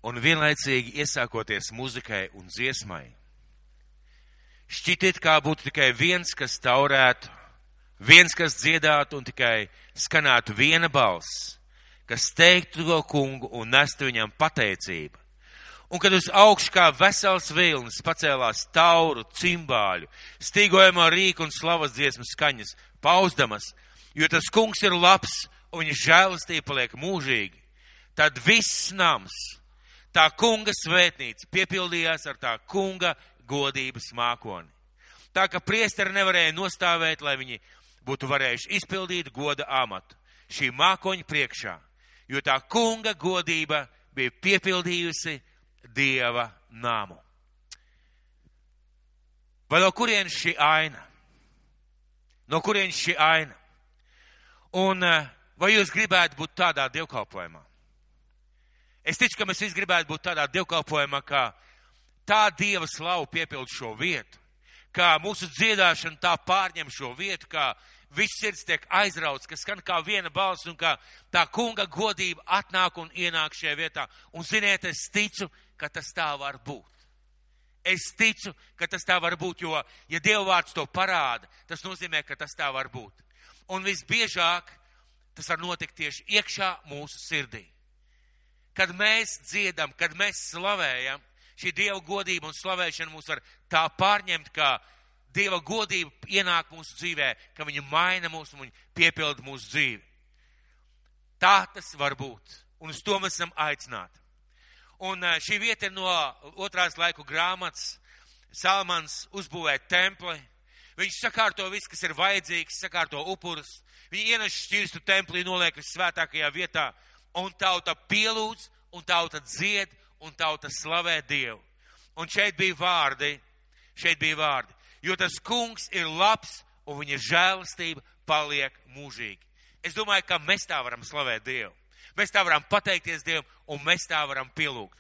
un vienlaicīgi iesākoties muzikai un dziesmai. Šķiet, kā būtu tikai viens, kas taurētu, viens, kas dziedātu un tikai skanētu viena balss, kas teiktu to kungu un nestu viņam pateicību. Un kad uz augšu kā vesels vilnis pacēlās tauru, cimbāļu, stīgojamo rīku un slavas dziesmu skaņas, pauzdamas, jo tas kungs ir labs un viņa žēlastība paliek mūžīgi, tad viss nams, tā kunga svētnīca piepildījās ar tā kunga godības mākoni. Tā ka priesteri nevarēja nostāvēt, lai viņi būtu varējuši izpildīt goda amatu šī mākoņa priekšā, jo tā kunga godība bija piepildījusi Dieva namu. Vai no kurienes šī aina? No kurienes šī aina? Un vai jūs gribētu būt tādā dievkalpojumā? Es ticu, ka mēs visi gribētu būt tādā dievkalpojumā, kā tā Dieva slavu piepild šo vietu, kā mūsu dziedāšana tā pārņem šo vietu, kā viss sirds tiek aizrauts, ka skan kā viena balss un kā tā kunga godība atnāk un ienāk šajā vietā. Un ziniet, es ticu, ka tas tā var būt. Es ticu, ka tas tā var būt, jo, ja Dieva vārds to parāda, tas nozīmē, ka tas tā var būt. Un visbiežāk tas var notikt tieši iekšā mūsu sirdī. Kad mēs dziedam, kad mēs slavējam, šī Dieva godība un slavēšana mūs var tā pārņemt, kā Dieva godība ienāk mūsu dzīvē, ka viņa maina mūs un viņa piepilda mūsu dzīvi. Tā tas var būt. Un uz to mēs esam aicināti. Un šī vieta ir no 2. laiku grāmatas. Salmans uzbūvē templi. Viņš sakārto visu, kas ir vajadzīgs, sakārto upurus. Viņi ienes šķirstu templī, noliek svētākajā vietā. Un tauta pielūdz, un tauta dzied, un tauta slavē Dievu. Un šeit bija vārdi. Jo tas kungs ir labs, un viņa žēlastība paliek mūžīgi. Es domāju, ka mēs tā varam slavēt Dievu. Mēs tā varam pateikties Dievam, un mēs tā varam pielūgt.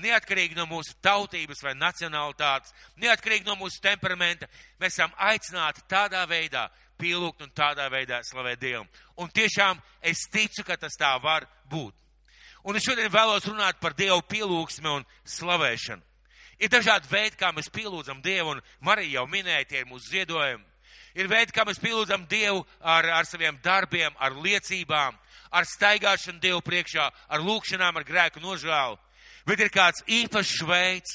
Neatkarīgi no mūsu tautības vai nacionalitātes, neatkarīgi no mūsu temperamenta, mēs esam aicināti tādā veidā pielūgt un tādā veidā slavēt Dievam. Un tiešām es ticu, ka tas tā var būt. Un es šodien vēlos runāt par Dievu pielūgsmi un slavēšanu. Ir dažādi veidi, kā mēs pielūdzam Dievu, un Marija jau minēja, tie ir mūsu ziedojumi. Ir veidi, kā mēs pielūdzam Dievu ar saviem darbiem, ar liecībām, ar staigāšanu Dievu priekšā, ar lūkšanām, ar grēku nožēlu. Bet ir kāds īpašs veids,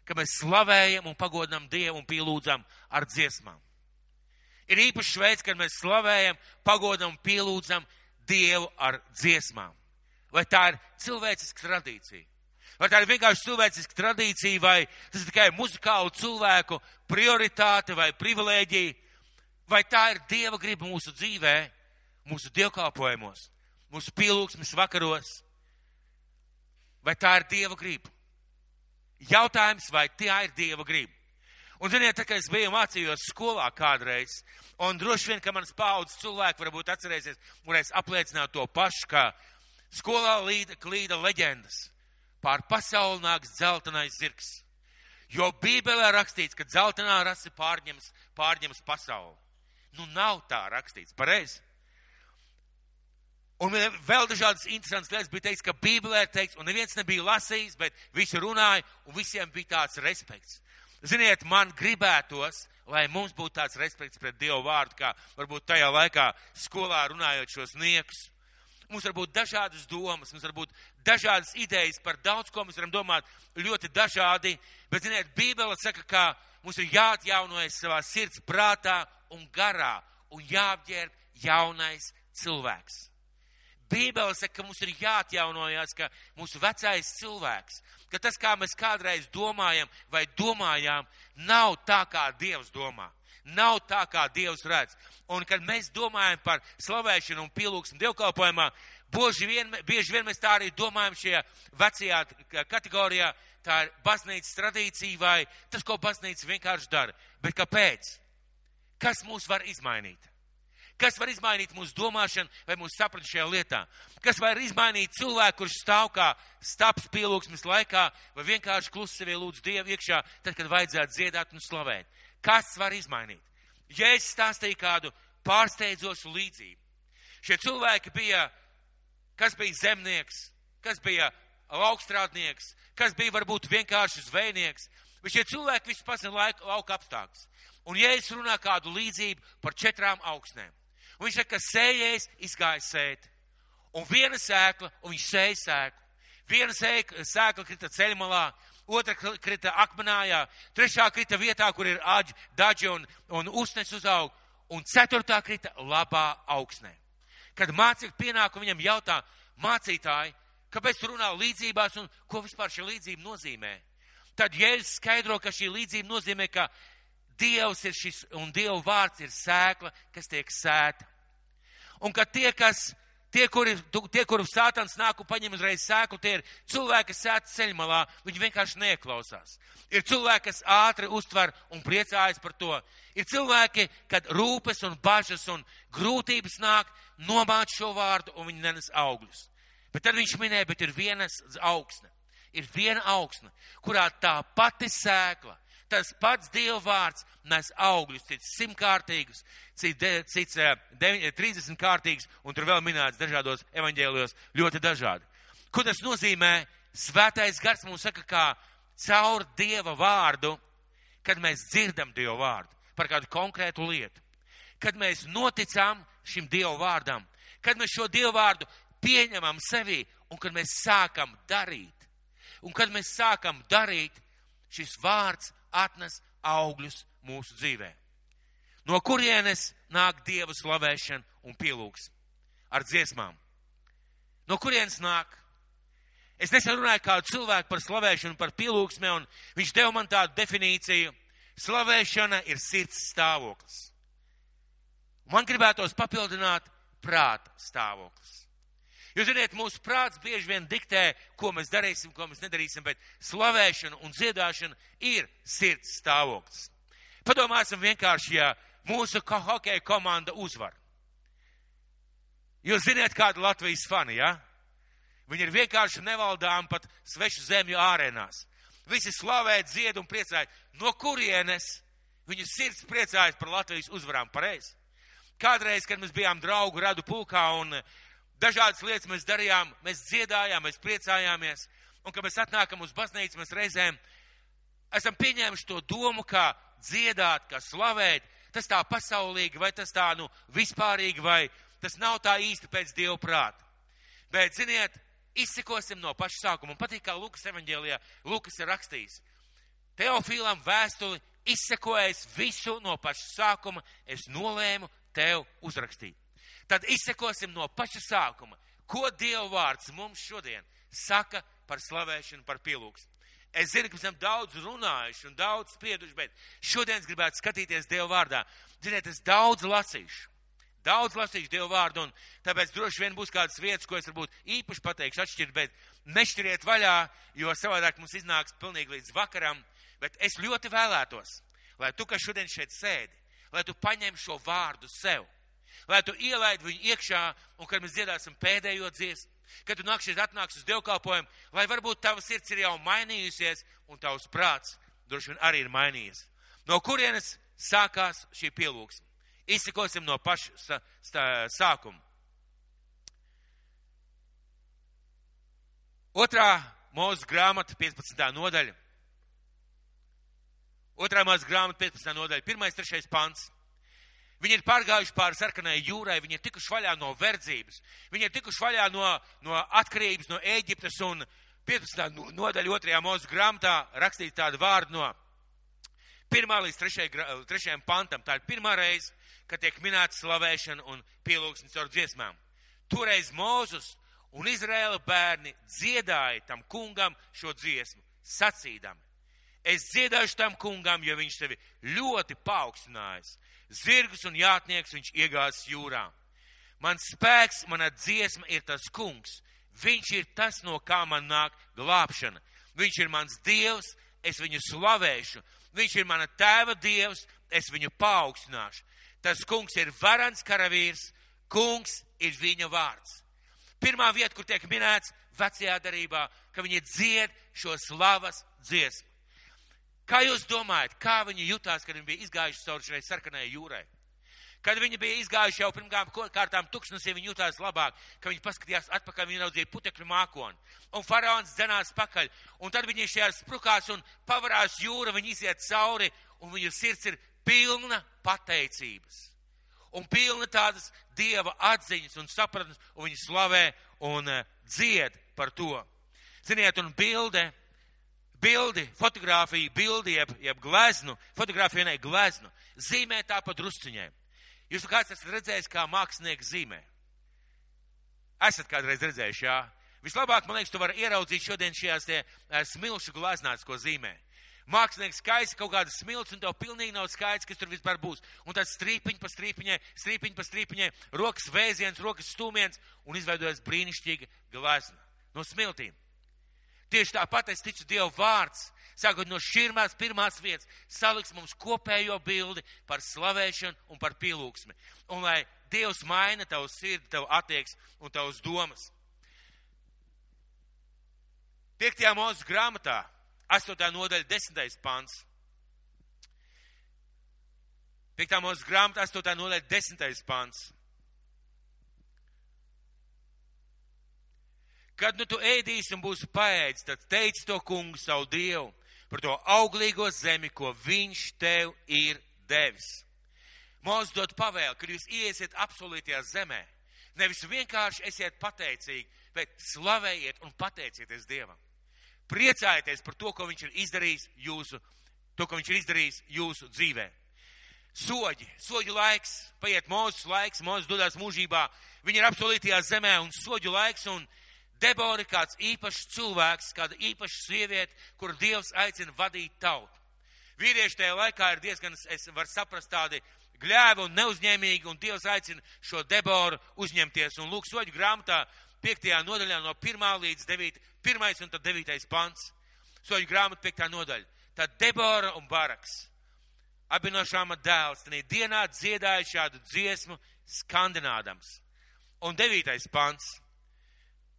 ka mēs slavējam un pagodinam Dievu un pielūdzam ar dziesmām. Ir īpašs veids, kad mēs slavējam, pagodinam un pielūdzam Dievu ar dziesmām. Vai tā ir cilvēciska tradīcija? Vai tā ir vienkārši cilvēciska tradīcija, vai tas ir tikai muzikālu cilvēku prioritāte vai privilēģija? Vai tā ir Dieva griba mūsu dzīvē, mūsu dievkalpojumos, mūsu pielūgsmes vakaros? Vai tā ir Dieva griba? Jautājums, vai tā ir Dieva griba? Un ziniet, tā kā es biju mācījos skolā kādreiz, un droši vien, ka manas paaudzes cilvēki varbūt atcerēsies, varēs apliecināt to pašu, ka skolā klīda leģendas. Pār pasauli nāks dzeltenais zirgs. Jo Bībelē rakstīts, ka dzeltenā rase pārņems pasauli. Nu, nav tā rakstīts, pareizi. Un vēl dažādas interesantas lietas bija teikts, ka Bībelē ir teikts, un neviens nebija lasījis, bet visi runāja, un visiem bija tāds respekts. Ziniet, man gribētos, lai mums būtu tāds respekts pret Dievu vārdu, kā varbūt tajā laikā skolā runājot šos niekus. Mums var būt dažādas domas, mums var būt dažādas idejas par daudz, ko mēs varam domāt ļoti dažādi, bet, ziniet, Bībele saka, ka mums ir jāatjaunojas savā sirds prātā un garā un jāapģērb jaunais cilvēks. Bībele saka, ka mums ir jāatjaunojas, ka mūsu vecais cilvēks, ka tas, kā mēs kādreiz domājam vai domājām, nav tā, kā Dievs domā. Nav tā, kā Dievs redz. Un, kad mēs domājam par slavēšanu un pielūgsmu dievkalpojumā, bieži vien mēs tā arī domājam šajā vecajā kategorijā, tā ir baznīcas tradīcija vai tas, ko baznīca vienkārši dara. Bet kāpēc? Kas mūs var izmainīt? Kas var izmainīt mūsu domāšanu vai mūsu sapratu šajā lietā? Kas var izmainīt cilvēku, kurš stāv kā stāps pielūgsmes laikā vai vienkārši klusi sevi lūdz Dievu iekšā, tad, kad vajadzētu dziedāt un slavēt? Kas var izmainīt? Ja es stāstīju kādu pārsteidzošu līdzību. Šie cilvēki bija, kas bija zemnieks, kas bija laukstrādnieks, kas bija varbūt vienkārši zvejnieks. Bet šie cilvēki visu pasina lauka apstākļus. Un Jēzus runā kādu līdzību par 4 augsnēm. Un viņš saka, ka sējējs izgāja sēt. Un viena sēkla, un viņš sēja sēklu. Viena sēkla krita ceļmalā, otra krita akmenājā, trešā krita vietā, kur ir daži un usnes uzaug, un 4. krita labā augsnē. Kad mācekļi pienāk un viņam jautā, mācītāji, kāpēc tu runā līdzībās un ko vispār šī līdzība nozīmē? Tad Jēzus skaidro, ka šī līdzība nozīmē, ka Dievs ir šis un Dieva vārds ir sēkla, kas tiek sēta. Un ka tie, kuri Sātans nāk un paņem uzreiz sēklu, tie ir cilvēki, kas sēta ceļmalā, viņi vienkārši neklausās. Ir cilvēki, kas ātri uztver un priecājas par to. Ir cilvēki, kad rūpes un bažas un grūtības nāk, nomāc šo vārdu un viņi nenes augļus. Bet tad viņš minēja, bet ir viena augsne. Ir viena augsne, kurā tā pati sēkla, tas pats Dieva vārds nes augļus, cits 100-kārtīgus, cits 30-kārtīgus, un tur vēl minēts dažādos evaņģēlijos ļoti dažādi. Ko tas nozīmē? Svētais gars mums saka, kā caur Dieva vārdu, kad mēs dzirdam Dieva vārdu par kādu konkrētu lietu, kad mēs noticam šim Dieva vārdam, kad mēs šo Dieva vārdu pieņemam sevī un kad mēs sākam darīt. Un kad mēs sākam darīt, šis vārds atnes augļus mūsu dzīvē. No kurienes nāk Dieva slavēšana un pielūgs ar dziesmām? No kurienes nāk? Es nesen runāju kādu cilvēku par slavēšanu, par pielūgsmē, un viņš deva man tādu definīciju. Slavēšana ir sirds stāvoklis. Man gribētos papildināt prāta stāvoklis. Jūs ziniet, mūsu prāts bieži vien diktē, ko mēs darīsim, ko mēs nedarīsim, bet slavēšana un dziedāšana ir sirds stāvoklis. Padomāsim vienkārši, ja mūsu hokeja komanda uzvar. Jūs ziniet, kāda Latvijas fani, ja? Viņi ir vienkārši nevaldām pat svešu zemju ārēnās. Visi slavē, dzied un priecājas. No kurienes viņu sirds priecājas par Latvijas uzvarām? Pareizi. Kādreiz, kad mēs bijām draugu radu pulkā un dažādas lietas mēs darījām, mēs dziedājām, mēs priecājāmies. Un, kad mēs atnākam uz baznīcu, mēs reizēm esam pieņēmuši to domu, kā dziedāt, kā slavēt. Tas tā pasaulīgi, vai tas tā vispārīgi, vai tas nav tā īsti pēc Dieva prāta. Bet, ziniet, izsekosim no paša sākuma. Un patīk, kā Lukas evaņģēlijā Lukas ir rakstījis. Teofīlam vēstuli izsekojis visu no paša sākuma, es nolēmu tev uzrakstīt. Tad izsekosim no paša sākuma, ko Dieva vārds mums šodien saka par slavēšanu, par pielūgsmu. Es zinu, ka mēs esam daudz runājuši un daudz sprieduši, bet šodien es gribētu skatīties Dieva vārdā. Ziniet, es daudz lasīšu Dieva vārdu, un tāpēc droši vien būs kādas vietas, ko es varbūt īpaši pateikšu atšķirt, bet nešķiriet vaļā, jo savādāk mums iznāks pilnīgi līdz vakaram. Bet es ļoti vēlētos, lai tu, kas šodien šeit sēdi, lai tu paņem šo vārdu sev, lai tu ielaid viņu iekšā, un kad mēs dziedāsim pēdējo dziesmu, kad tu atnāks uz dievkalpojumu, lai varbūt tava sirds ir jau mainījusies, un tavs prāts droši vien arī ir mainījies. No kurienes sākās šī pielūgsme? Izsekosim no paša sākuma. 2. Mūzes grāmata, 15. nodaļa. 2. Mūzes grāmata, 15. nodaļa, 1.3. pants. Viņi ir pārgājuši pāri sarkanai jūrai, viņi ir tikuši vaļā no verdzības, viņi ir tikuši vaļā no atkarības, no Ēģiptes, un 15. nodaļa 2. Mūzes grāmatā rakstīt tādu vārdu no 1. līdz 3. pantam. Tā ir pirmā reize, kad tiek minēta slavēšana un pielūgsmes caur dziesmām. Toreiz Mūzes un Izraēla bērni dziedāja tam kungam šo dziesmu, sacīdami: es dziedāšu tam kungam, jo viņš sevi ļoti paaugstinājis. Zirgus un jātnieks viņš iegāzis jūrā. Mans spēks, mana dziesma ir tas kungs. Viņš ir tas, no kā man nāk glābšana. Viņš ir mans Dievs, es viņu slavēšu. Viņš ir mana tēva Dievs, es viņu paaugstināšu. Tas kungs ir varans karavīrs, kungs ir viņa vārds. Pirmā vieta, kur tiek minēts vecajā darībā, ka viņi dzied šo slavas dziesmu. Kā jūs domājat, kā viņi jutās, kad viņi bija izgājuši cauri šai sarkanai jūrai? Kad viņi bija izgājuši jau pirmām kārtām tuksnesī, viņi jutās labāk, ka viņi paskatījās atpakaļ, viņi raudzīja putekļu mākoni. Un faraons dzenās pakaļ, un tad viņi šajās sprukās un pavarās jūra, viņi iziet cauri, un viņu sirds ir pilna pateicības. Un pilna tādas Dieva atziņas un sapratnes, un viņi slavē un dzied par to. Ziniet, un fotogrāfija, bildi, jeb gleznu, fotogrāfija ne gleznu, zīmē tā pa drusciņiem. Jūs kāds esat redzējis, kā mākslinieks zīmē? Esat kādreiz redzējuši, jā? Vislabāk, man liekas, tu vari ieraudzīt šodien šajās smilšu gleznās, ko zīmē. Mākslinieks skaisa kaut kādas smilts, un tev pilnīgi nav skaidrs, kas tur vispār būs. Un tad strīpiņi pa strīpiņai, rokas vēziens, rokas stūmiens, un izveidojas brīnišķīga glezna no smiltīm. Tieši tāpat es ticu Dieva vārds, sākot no širmās pirmās vietas, saliks mums kopējo bildi par slavēšanu un par pielūgsmi. Un lai Dievs maina tavu sirdi, tavu attieksmi un tavas domas. 5. Mūzes grāmatā, 8. nodaļa, 10. pants. 5. Mūzes grāmatā, 8. nodaļa, 10. pants. Kad nu tu ēdīsi un būsi paēdis, tad teici to kungu savu Dievu par to auglīgo zemi, ko viņš tev ir devis. Mūzes dod pavēli, kad jūs iesiet apsolītajā zemē, nevis vienkārši esiet pateicīgi, bet slavējiet un pateicieties Dievam. Priecājieties par to, ko viņš ir izdarījis jūsu dzīvē. Soģu laiks, paiet Mūzes laiks, Mūzes dodās mūžībā, viņi ir apsolītajā zemē un soģu laiks, un Debora ir kāds īpašs cilvēks, kāda īpaša sieviete, kur Dievs aicina vadīt tautu. Vīrieši tajā laikā ir diezgan, es varu saprast, tādi gļēvi un neuzņēmīgi, un Dievs aicina šo Deboru uzņemties. Un lūk, soģu grāmatā 5. nodaļā no 1. līdz 1. un tad 9. pants. Soģu grāmata 5. nodaļa. Tad Debora un Baraks, abi no Šāma dēls, tanī dienā dziedāja šādu dziesmu skandinādams. Un 9. pants.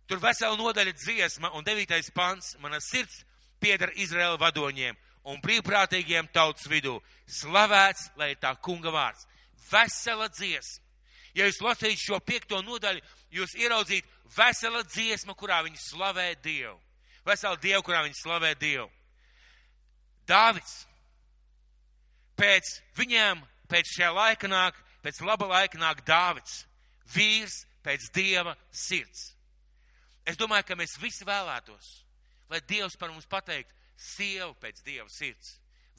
Tur vesela nodaļa dziesma, un 9. pants, mana sirds pieder Izraēla vadoņiem un brīvprātīgiem tautas vidū. Slavēts, lai ir tā kunga vārds. Vesela dziesma. Ja jūs lasītu šo 5. nodaļu, jūs ieraudzītu vesela dziesma, kurā viņi slavē Dievu. Vesela Dievu, kurā viņi slavē Dievu. Dāvids. Pēc šajā laika nāk, pēc laba laika nāk Dāvids. Vīrs pēc Dieva sirds. Es domāju, ka mēs visi vēlētos, lai Dievs par mums pateikt, sieva pēc Dieva sirds,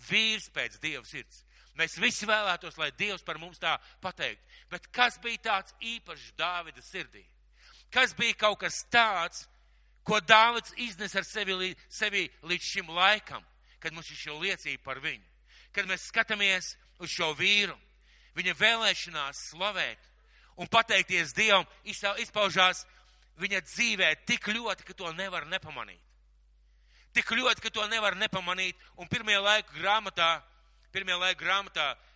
vīrs pēc Dieva sirds. Mēs visi vēlētos, lai Dievs par mums tā pateikt. Bet kas bija tāds īpašs Dāvida sirdī? Kas bija kaut kas tāds, ko Dāvids iznes ar sevi līdz šim laikam, kad mums ir šī liecība par viņu? Kad mēs skatāmies uz šo vīru, viņa vēlēšanās slavēt un pateikties Dievam, izpaužās viņa dzīvē tik ļoti, ka to nevar nepamanīt. Tik ļoti, ka to nevar nepamanīt. Un pirmajā laika grāmatā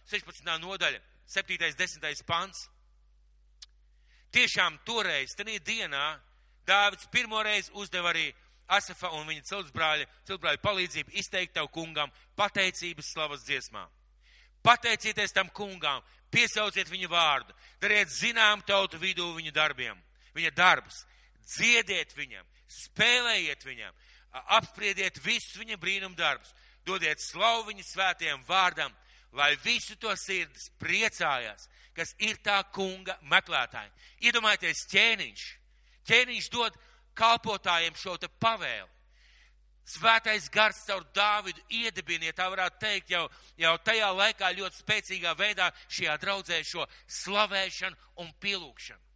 16. nodaļa, 7. 10. pants. Tiešām toreiz, tenī dienā, Dāvids pirmoreiz uzdeva arī Asafa un viņa ciltsbrāļa palīdzību izteikt tavu kungam pateicības slavas dziesmā. Pateicieties tam kungām, piesauciet viņu vārdu, dariet zinām tautu vidū viņa darbus. Dziediet viņam, spēlējiet viņam, apspriediet visus viņa brīnum darbus, dodiet slavu viņa svētajam vārdam, lai visu to sirdis priecājās, kas ir tā kunga meklētāji. Iedomājieties ķēniņš dod kalpotājiem šo te pavēli. Svētais gars caur Dāvidu iedibiniet, tā varētu teikt, jau tajā laikā ļoti spēcīgā veidā šajā draudzē šo slavēšanu un pielūgšanu.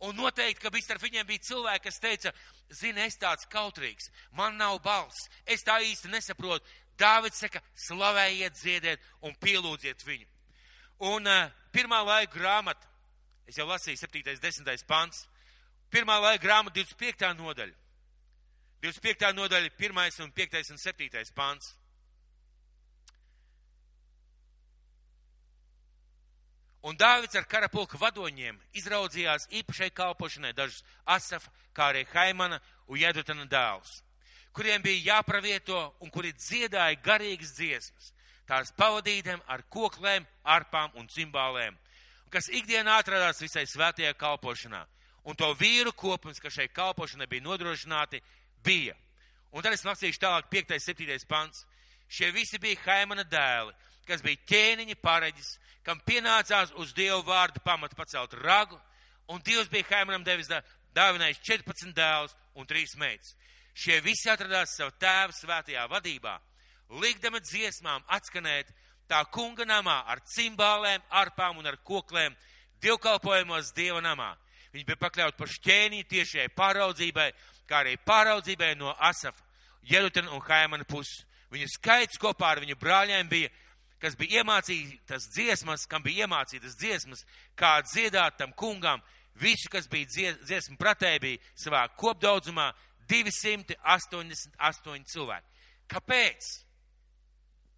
Un noteikti, ka starp viņiem bija cilvēki, kas teica, zini, es tāds kautrīgs, man nav balss, es tā īsti nesaprotu. Dāvids saka, slavējiet, dziediet un pielūdziet viņu. Un 1. laika grāmata, es jau lasīju 7. 10. pants, 1. laika grāmata 25. nodaļa. 25. nodaļa, 1. un 5. un 7. pants. Un Dāvids ar karapulka vadoņiem izraudzījās īpašai kalpošanai dažus Asafa, kā arī Haimana un Jedutana dēlus, kuriem bija jāpravieto un kuri dziedāja garīgas dziesmas, tās pavadītiem ar koklēm, arpām un cimbālēm. kas ikdienā atradās visai svētajā kalpošanā. Un to vīru kopums, kas šai kalpošanai bija nodrošināti, bija. Un tad es lasīšu tālāk 5. 7. pants. Šie visi bija Haimana dēli, kas bija ķēniņa pareģis, kam pienācās uz Dievu vārdu pamatu pacelt ragu, un Dievs bija Haimanam devis dāvinājis 14 dēlus un 3 meitas. Šie visi atradās savu tēvu svētajā vadībā, likdami dziesmām atskanēt tā kunga namā ar cimbālēm, arpām un ar koklēm, dievkalpojumos Dieva namā. Viņi bija pakļauti par ķēniņu tiešai pāraudzībai, kā arī pāraudzībai no Asafa, Jedutena un Haimana puses. Viņu skaits kopā ar viņu brāļiem bija, kas bija iemācītas dziesmas, kam bija iemācītas dziesmas, kā dziedāt tam kungam. Visi, kas bija dziesmu pratēji, bija savā kopdaudzumā 288 cilvēki. Kāpēc?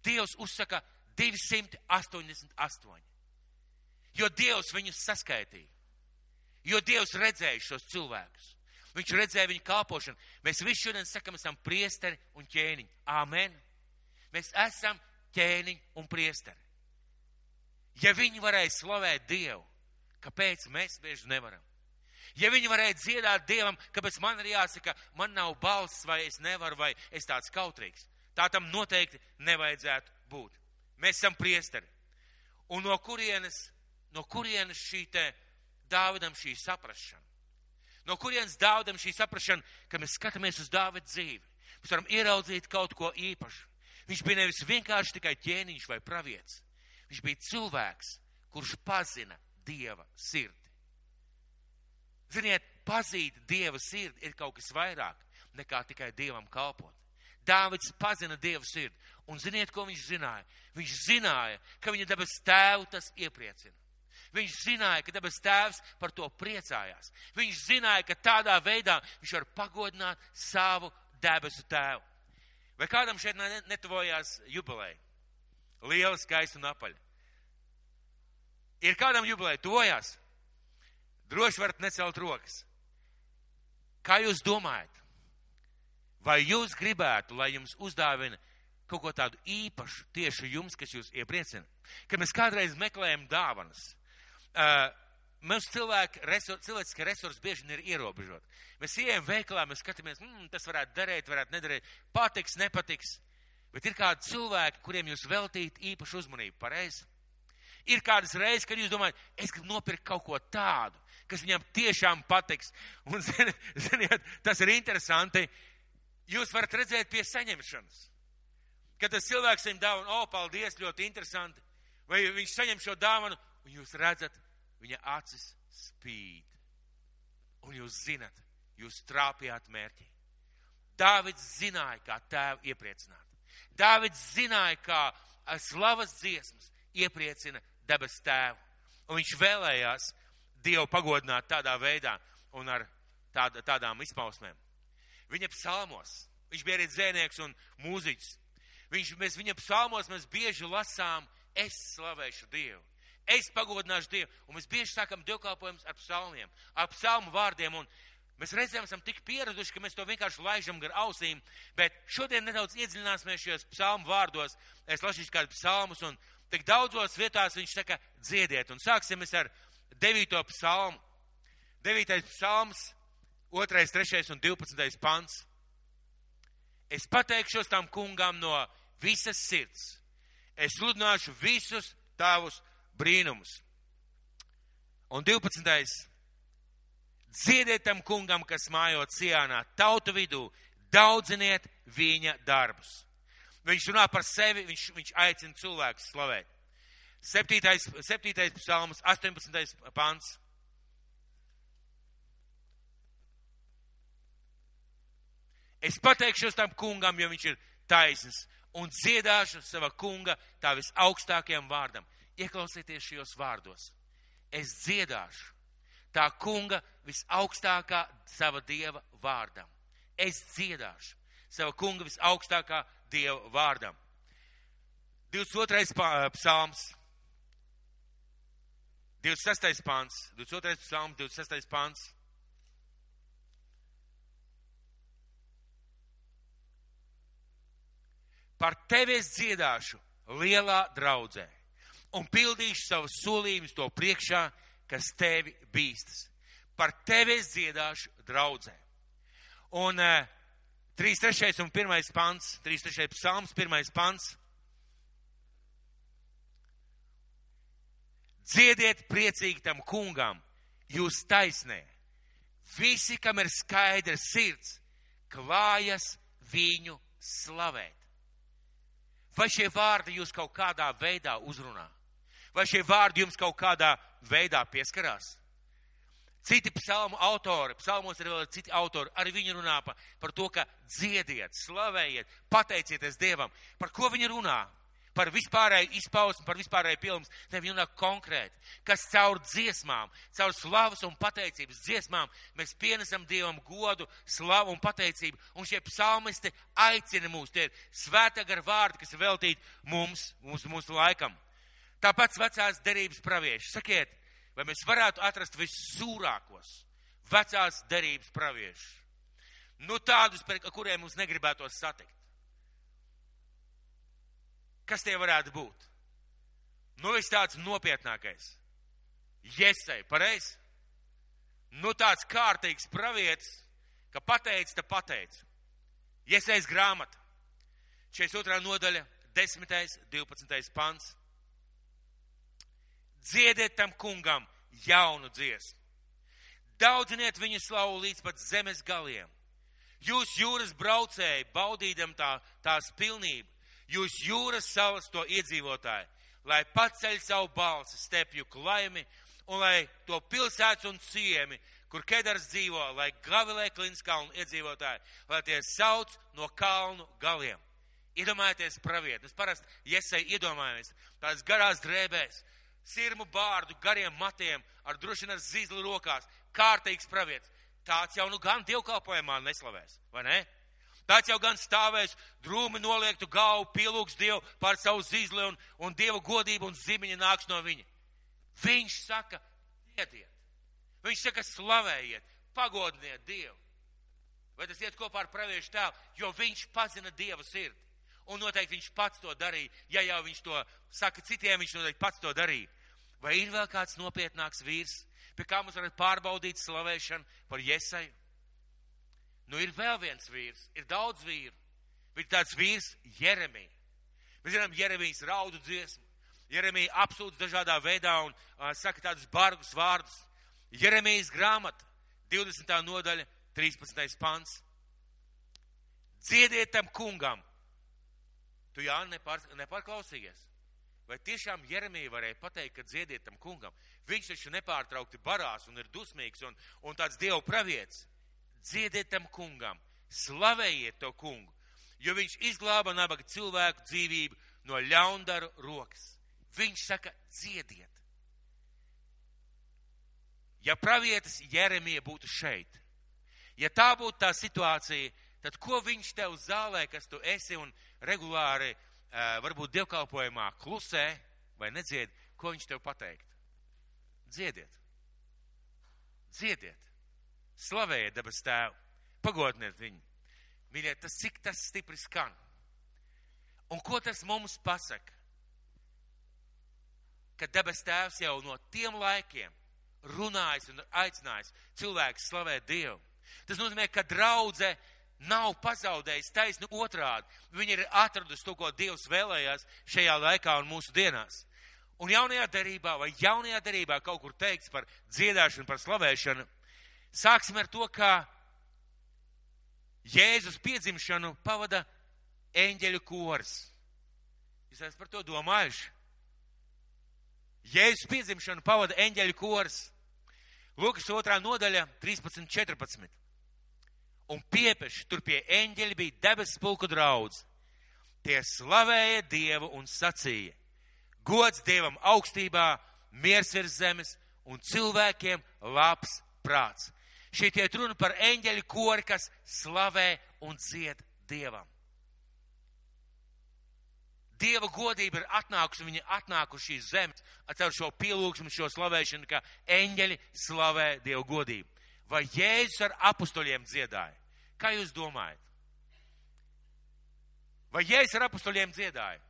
Dievs uzsaka 288. Jo Dievs viņus saskaitīja. Jo Dievs redzēja šos cilvēkus. Viņš redzēja viņu kalpošanu. Mēs visi šodien sakam, esam priesteri un ķēniņi. Āmen. Mēs esam ķēniņi un priesteri. Ja viņi varēja slavēt Dievu, kāpēc mēs bieži nevaram? Ja viņi varēja dziedāt Dievam, kāpēc man ir jāsaka, man nav balss, vai es nevaru, vai es tāds kautrīgs. Tā tam noteikti nevajadzētu būt. Mēs esam priesteri. Un no kurienes šī te Dāvidam šī saprašana? No kurienes Dāvidam šī saprašana, ka mēs skatāmies uz Dāvida dzīvi? Mēs varam ieraudzīt kaut ko īpašu. Viņš bija nevis vienkārši tikai ķēniņš vai pravietis. Viņš bija cilvēks, kurš pazina Dieva sirdi. Ziniet, pazīt Dieva sirdi ir kaut kas vairāk nekā tikai Dievam kalpot. Dāvids pazina Dieva sirdi. Un ziniet, ko viņš zināja? Viņš zināja, ka viņa debes tēvu tas iepriecina. Viņš zināja, ka debes tēvs par to priecājās. Viņš zināja, ka tādā veidā viņš var pagodināt savu debesu tēvu. Vai kādam šeit netuvojās jubileja? Liela, skaista un apaļa. Ir kādam jubileja tuvojās? Droši varat necelt rokas. Kā jūs domājat? Vai jūs gribētu, lai jums uzdāvina kaut ko tādu īpašu tieši jums, kas jūs iepriecina? Kad mēs kādreiz meklējam dāvanas, mums cilvēciskie resursi bieži ir ierobežoti. Mēs ejam veikalā, mēs skatāmies, tas varētu derēt, varētu nederēt, patiks, nepatiks. Bet ir kādi cilvēki, kuriem jūs veltīt īpašu uzmanību, pareizi? Ir kādas reizes, kad jūs domājat, es gribu nopirkt kaut ko tādu, kas viņam tiešām patiks. Un, ziniet, tas ir interesanti. Jūs varat redzēt pie saņemšanas. Kad tas cilvēks saņem dāvanu, paldies, ļoti interesanti. Vai viņš saņem šo dāvanu, un jūs redzat, viņa acis spīd. Un jūs zinat, jūs trāpījāt mērķī. Dāvids zināja, kā tēvu iepriecināt. Dāvids zināja, kā slavas dziesmas iepriecina debes tēvu. Un viņš vēlējās Dievu pagodināt tādā veidā un ar tādām izpausmēm. Viņa psalmos, viņš bija arī dzēnieks un mūziķis. Viņa psalmos mēs bieži lasām, es slavēšu Dievu, es pagodināšu Dievu. Un mēs bieži sākam dievkalpojumus ar psalmiem, ar psalmu vārdiem. Un mēs reizēm esam tik pieraduši, ka mēs to vienkārši laižam gar ausīm. Bet šodien nedaudz iedziļināsimies šajos psalmu vārdos. Es lasīšu kādu psalmus un tik daudzos vietās viņš saka dziediet. Un sāksim mēs ar 9. psalmu. 9. psalms, 2., 3. un 12. pants. Es pateikšos tam kungam no visas sirds. Es sludināšu visus tavus brīnumus. Un 12. Dziediet tam kungam, kas mājot Sionā, tautu vidū, daudziniet viņa darbus. Viņš runā par sevi, viņš aicina cilvēkus slavēt. 7. psalms, 18. pants. Es pateikšos tam kungam, jo viņš ir taisns, un dziedāšu sava kunga tā visaugstākajam vārdam. Ieklausieties šajos vārdos. Es dziedāšu tā kunga visaugstākā sava Dieva vārdam. Es dziedāšu sava kunga visaugstākā Dieva vārdam. 22. psalms, 26. pants, 22. psalms, 26. pants. Par tevi es dziedāšu lielā draudzē. un pildīšu savus solījumus to priekšā, kas tevi bīstas. Par tevi es dziedāšu draudzē. Un 3.3. un 1. pants, 3.3. psalms, 1. pants. Dziediet priecīgi tam kungam, jūs taisnē. Visi, kam ir skaidra sirds, klājas viņu slavēt. Vai šie vārdi jūs kaut kādā veidā uzrunā? Vai šie vārdi jums kaut kādā veidā pieskarās? Citi psalmu autori, psalmos ir vēl citi autori, arī viņi runā par to, ka dziediet, slavējiet, pateicieties Dievam. Par ko viņi runā? Par vispārēju izpausmu, par vispārēju pilnums. Ne, viņi runā konkrēti, kas caur dziesmām, caur slavas un pateicības dziesmām mēs pienesam Dievam godu, slavu un pateicību. Un šie psalmisti aicina mūs, tie ir svētā gara vārdi, kas ir veltīti mūsu laikam. Tāpēc vecās derības pravieši. Sakiet, vai mēs varētu atrast vissūrākos vecās derības praviešus? Nu tādus, par kuriem mums negribētos satikt. Kas tie varētu būt? Nu, viss tāds nopietnākais. Jesai, pareizi? Nu, tāds kārtīgs pravietis, ka pateic, ta pateic. Jesais grāmata. 42. nodaļa, 10. 12. pants. Dziediet tam kungam jaunu dziesmu. Daudziniet viņu slavu līdz pat zemes galiem. Jūs jūras braucēji, baudīdam tās pilnību. Jūs jūras salas to iedzīvotāji, lai paceļ savu balsi stepju klaimi, un lai to pilsētas un ciemi, kur Kedars dzīvo, lai gavilē Klinskalnu iedzīvotāji, lai tie sauc no kalnu galiem. Iedomājieties pravieti, mēs parasti Jesai iedomājamies, tās garās drēbēs, sirmu bārdu, gariem matiem, ar droši ar zīzli rokās, kārtīgs pravietis. Tāds jau nu gan dievkalpojumā neslavēs, vai ne? Tāds jau gan stāvēs, drūmi noliektu galvu, pielūgs Dievu pār savu zīzli un Dieva godību un zimiņa nāks no viņa. Viņš saka, dziediet. Viņš saka, slavējiet, pagodiniet Dievu. Vai tas iet kopā ar praviešu tēlu? Jo viņš pazina Dieva sirdi. Un noteikti viņš pats to darīja. Ja jau viņš to saka citiem, viņš noteikti pats to darīja. Vai ir vēl kāds nopietnāks vīrs, pie kā mums varat pārbaudīt slavēšanu par Jesaju? Nu, ir vēl viens vīrs, ir daudz vīru, bet tāds vīrs Jeremija. Mēs zinām, Jeremijas raudu dziesmu. Jeremija apsūdz dažādā veidā un saka tādus bargus vārdus. Jeremijas grāmata, 20. nodaļa, 13. pants. Dziediet tam kungam. Tu, Jāni, nepārklausījies. Vai tiešām Jeremija varēja pateikt, ka dziediet tam kungam? Viņš taču nepārtraukti barās un ir dusmīgs un tāds Dievu pravietis. Dziediet tam kungam, slavējiet to kungu, jo viņš izglāba nabaga cilvēku dzīvību no ļaundaru rokas. Viņš saka, dziediet. Ja pravietis Jeremija būtu šeit, ja tā būtu tā situācija, tad ko viņš tev zālē, kas tu esi un regulāri varbūt dievkalpojumā klusē vai nedzied, ko viņš tev pateikt? Dziediet. Dziediet. Slavējiet debes tēvu, pagodiniet viņu. Mīļie, cik tas stipri skan. Un ko tas mums pasaka? Ka debes tēvs jau no tiem laikiem runājis un aicinājis cilvēks slavēt Dievu. Tas nozīmē, ka draudze nav pazaudējis taisni otrādi. Viņi ir atradusi to, ko Dievs vēlējās šajā laikā un mūsu dienās. Un jaunajā derībā kaut kur teikts par dziedāšanu, par slavēšanu. Sāksim ar to, ka Jēzus piedzimšanu pavada eņģeļu kors. Jūs esat par to domājuši? Jēzus piedzimšanu pavada eņģeļu kors. Lūkas 2. nodaļa, 13-14. Un piepeši tur pie eņģeļa bija debesu pulku draudz. Tie slavēja Dievu un sacīja: gods Dievam augstībā, miers virs zemes un cilvēkiem labs prāts. Šeit iet runa par eņģeļu kori, kas slavē un dzied Dievam. Dieva godība ir atnākusi, viņa atnākuši šīs zemes ar šo pielūgsmu, šo slavēšanu, ka eņģeļi slavē Dieva godību. Vai Jēzus ar apustuļiem dziedāja? Kā jūs domājat? Vai Jēzus ar apustuļiem dziedāja?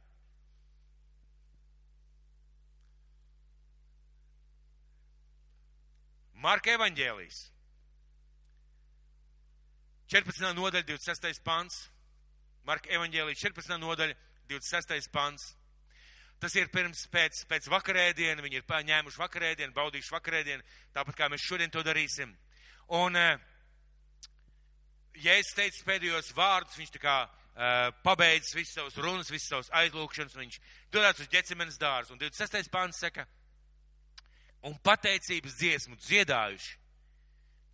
Marka evaņģēlijs. 14. nodaļa, 26. pants. Marka evaņģēlijs, 14. nodaļa, 26. pants. Tas ir pēc vakarēdiena, viņi ir ņēmuši vakarēdienu, baudījuši vakarēdienu, tāpat kā mēs šodien to darīsim. Un, ja es teicu pēdējos vārdus, viņš tā kā pabeidzis visas savas runas, visas savas aizlūkšanas, viņš dodas uz Ģecemenes dārzu. Un 26. pāns saka, un pateicības dziesmu dziedājuši,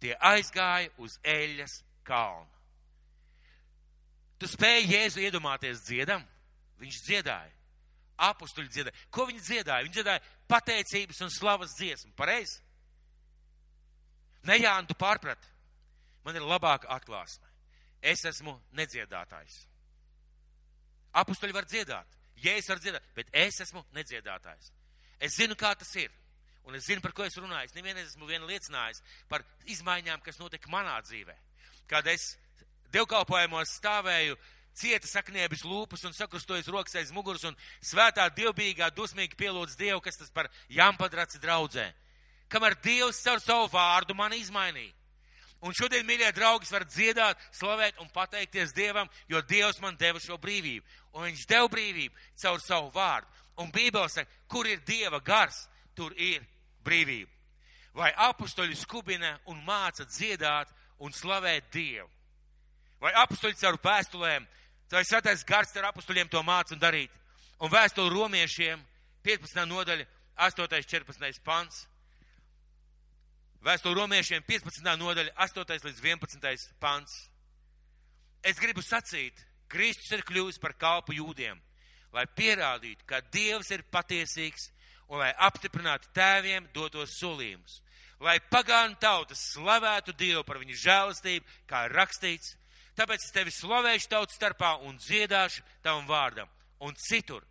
tie aizgāja uz Eļas kalnu. Tu spēji Jēzu iedomāties dziedam? Viņš dziedāja. Apustuļi dziedāja. Ko viņi dziedāja? Viņi dziedāja pateicības un slavas dziesmu. Pareizi? Ne, Jāni, tu pārprati. Man ir labāka atklāsme. Es esmu nedziedātājs. Apustuļi var dziedāt. Jēzus var dziedāt, bet es esmu nedziedātājs. Es zinu, kā tas ir. Un es zinu, par ko es runāju. Es nevienreiz esmu liecinājis par izmaiņām, kas notika manā dzīvē. Kad es dievkalpojumos stāvēju, cieta sakniebis lūpas un sakrustojas rokas aiz muguras un svētā dievbijīgā dusmīgi pielūdz Dievu, kas tas par jampadraci draudzē. Kamēr Dievs caur savu vārdu mani izmainīja. Un šodien, mīļie draugi, var dziedāt, slavēt un pateikties Dievam, jo Dievs man deva šo brīvību. Un viņš deva brīvību caur savu vārdu. Un Bībele saka, kur ir Dieva gars, tur ir brīvība. Vai apustuļi skubina un māca dziedāt un slavēt Dievu? Vai apustuļi caur vēstulēm, vai svētais gars ar apustuļiem to māca un darīt? Un vēstuli romiešiem, 15. nodaļa, 8. 14. pants. Vēstuli romiešiem, 15. nodaļa, 8. līdz 11. pants. Es gribu sacīt, Kristus ir kļuvis par kalpu jūdiem, lai pierādītu, ka Dievs ir patiesīgs un lai apstiprinātu tēviem dotos solījumus. Lai pagānu tautas slavētu Dievu par viņu žēlastību, kā rakstīts. Tāpēc es tevi slavēšu tautas starpā un dziedāšu tavam vārdam. Un citur,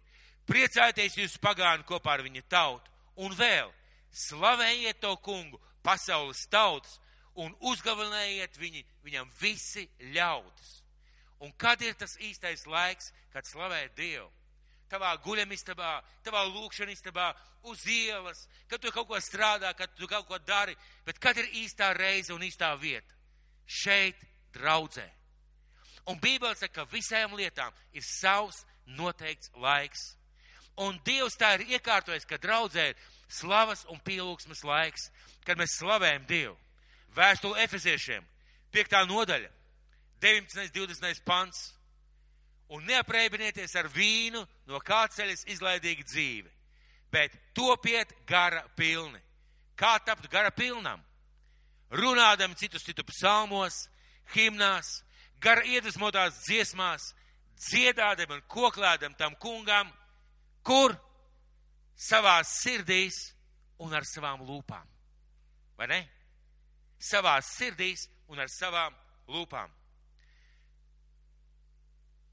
priecājieties jūs pagāni kopā ar viņa tautu. Un vēl, slavējiet to kungu, pasaules tautas, un uzgavilējiet viņam visi ļaudis. Un kad ir tas īstais laiks, kad slavēt Dievu? Tavā guļamistabā, tavā lūkšanistabā, uz ielas, kad tu kaut ko strādā, kad tu kaut ko dari, bet kad ir īstā reize un īstā vieta? Šeit, draudzē. Un Bībele saka, ka visām lietām ir savs noteikts laiks. Un Dievs tā ir iekārtojis, ka draudzē ir slavas un pielūgsmes laiks, kad mēs slavējam Dievu. Vēstule Efeziešiem, 5. nodaļa, 19. 20. pants. Un neaprēbinieties ar vīnu, no kā ceļas izlaidīga dzīve, bet topiet gara pilni. Kā tapt gara pilnam? Runādam citu psalmos, himnās, gara iedvesmotās dziesmās, dziedādam un koklēdam tam kungam, kur savās sirdīs un ar savām lūpām. Vai ne? Savās sirdīs un ar savām lūpām.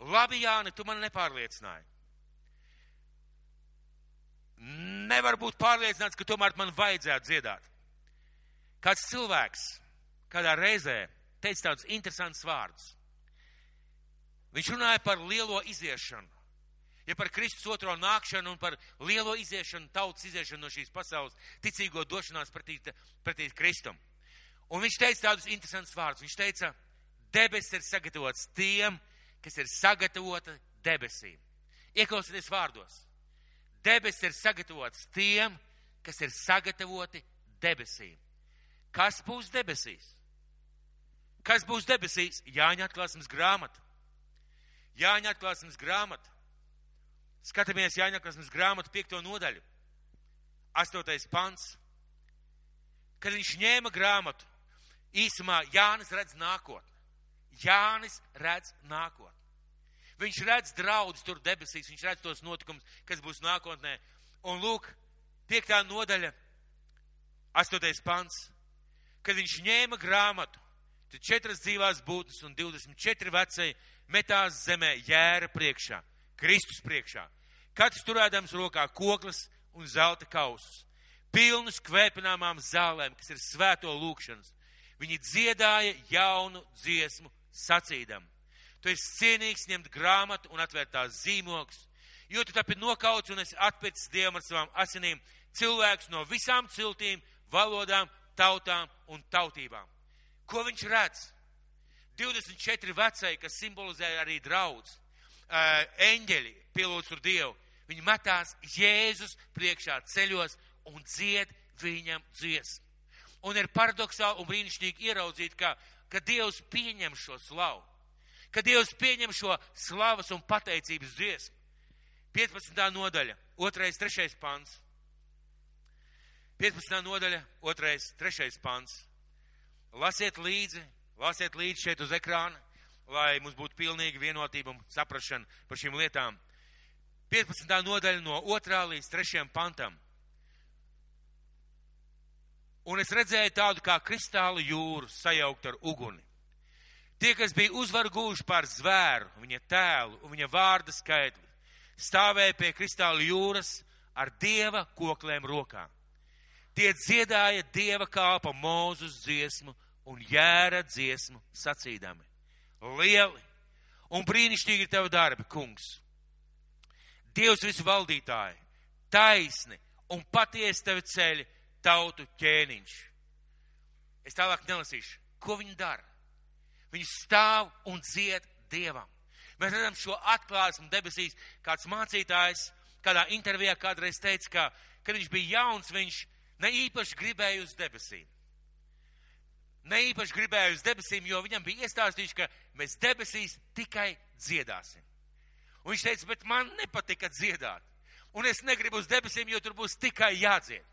Labi, Jāni, tu man nepārliecināji. Nevar būt pārliecināts, ka tomēr man vajadzētu dziedāt. Kāds cilvēks kādā reizē teica tādus interesantus vārdus. Viņš runāja par lielo iziešanu. Ja par Kristus otro nākšanu un par lielo iziešanu, tautas iziešanu no šīs pasaules, ticīgo došanās pretī Kristum. Un viņš teica tādus interesantus vārdus. Viņš teica, debesis ir sagatavots tiem, kas ir sagatavota debesīm. Ieklausieties vārdos. Debesis ir sagatavots tiem, kas ir sagatavoti debesīm. Kas būs debesīs? Kas būs debesīs? Jāņa atklāsmes grāmata. Jāņa atklāsmes grāmata. Skatāmies Jāņa atklāsmes grāmatu 5. nodaļu. 8. pants. Kad viņš ņēma grāmatu, īsumā Jānis redz nākotni. Jānis redz nākotni. Viņš redz draudus tur debesīs, viņš redz tos notikumus, kas būs nākotnē. Un lūk, 5. nodaļa, 8. pants. Kad viņš ņēma grāmatu, tad 4 dzīvās būtnes un 24 vecēji metās zemē jēra priekšā, Kristus priekšā. Katrs turēdams rokā koklas un zelta kausus, pilnus kvēpināmām zālēm, kas ir svēto lūkšanas. Viņi dziedāja jaunu dziesmu sacīdam. Tu esi cienīgs ņemt grāmatu un atvērt tās zīmogus, jo tu tapi nokauts un esi atpircis Dievam ar savām asinīm cilvēkus no visām ciltīm, valodām tautām un tautībām. Ko viņš redz? 24 vecēji, kas simbolizē arī draudz, eņģeļi pielūdz tur Dievu. Viņi metās Jēzus priekšā ceļos un dzied viņam dziesmu. Un ir paradoxāli un brīnišķīgi ieraudzīt, ka Dievs pieņem šo slavu. Ka Dievs pieņem šo slavas un pateicības dziesmu. 15. nodaļa, 2. 3. pants. 15. nodaļa, 2. 3. pants. Lasiet līdzi šeit uz ekrāna, lai mums būtu pilnīga vienotība un saprašana par šīm lietām. 15. nodaļa no 2. līdz 3. pantam. Un es redzēju tādu kā kristāla jūru sajaukt ar uguni. Tie, kas bija uzvaru guvuši pār zvēru, viņa tēlu un viņa vārda skaitli, stāvēja pie kristāla jūras ar Dieva koklēm rokā. Tie dziedāja Dieva kalpa Mūzus dziesmu un jēra dziesmu sacīdami. Lieli un brīnišķīgi ir tevi darbi, kungs. Dievs visu valdītāji, taisni un patiesi tevi ceļi tautu ķēniņš. Es tālāk nelasīšu, ko viņi dara. Viņi stāv un dzied Dievam. Mēs redzam šo atklāsmu debesīs. Kāds mācītājs kādā intervijā kādreiz teica, ka, kad viņš bija jauns, viņš ne īpaši gribēja uz debesīm. Ne īpaši gribēja uz debesīm, jo viņam bija iestāstījuši, ka mēs debesīs tikai dziedāsim. Un viņš teica, bet man nepatika dziedāt. Un es negribu uz debesīm, jo tur būs tikai jādzied.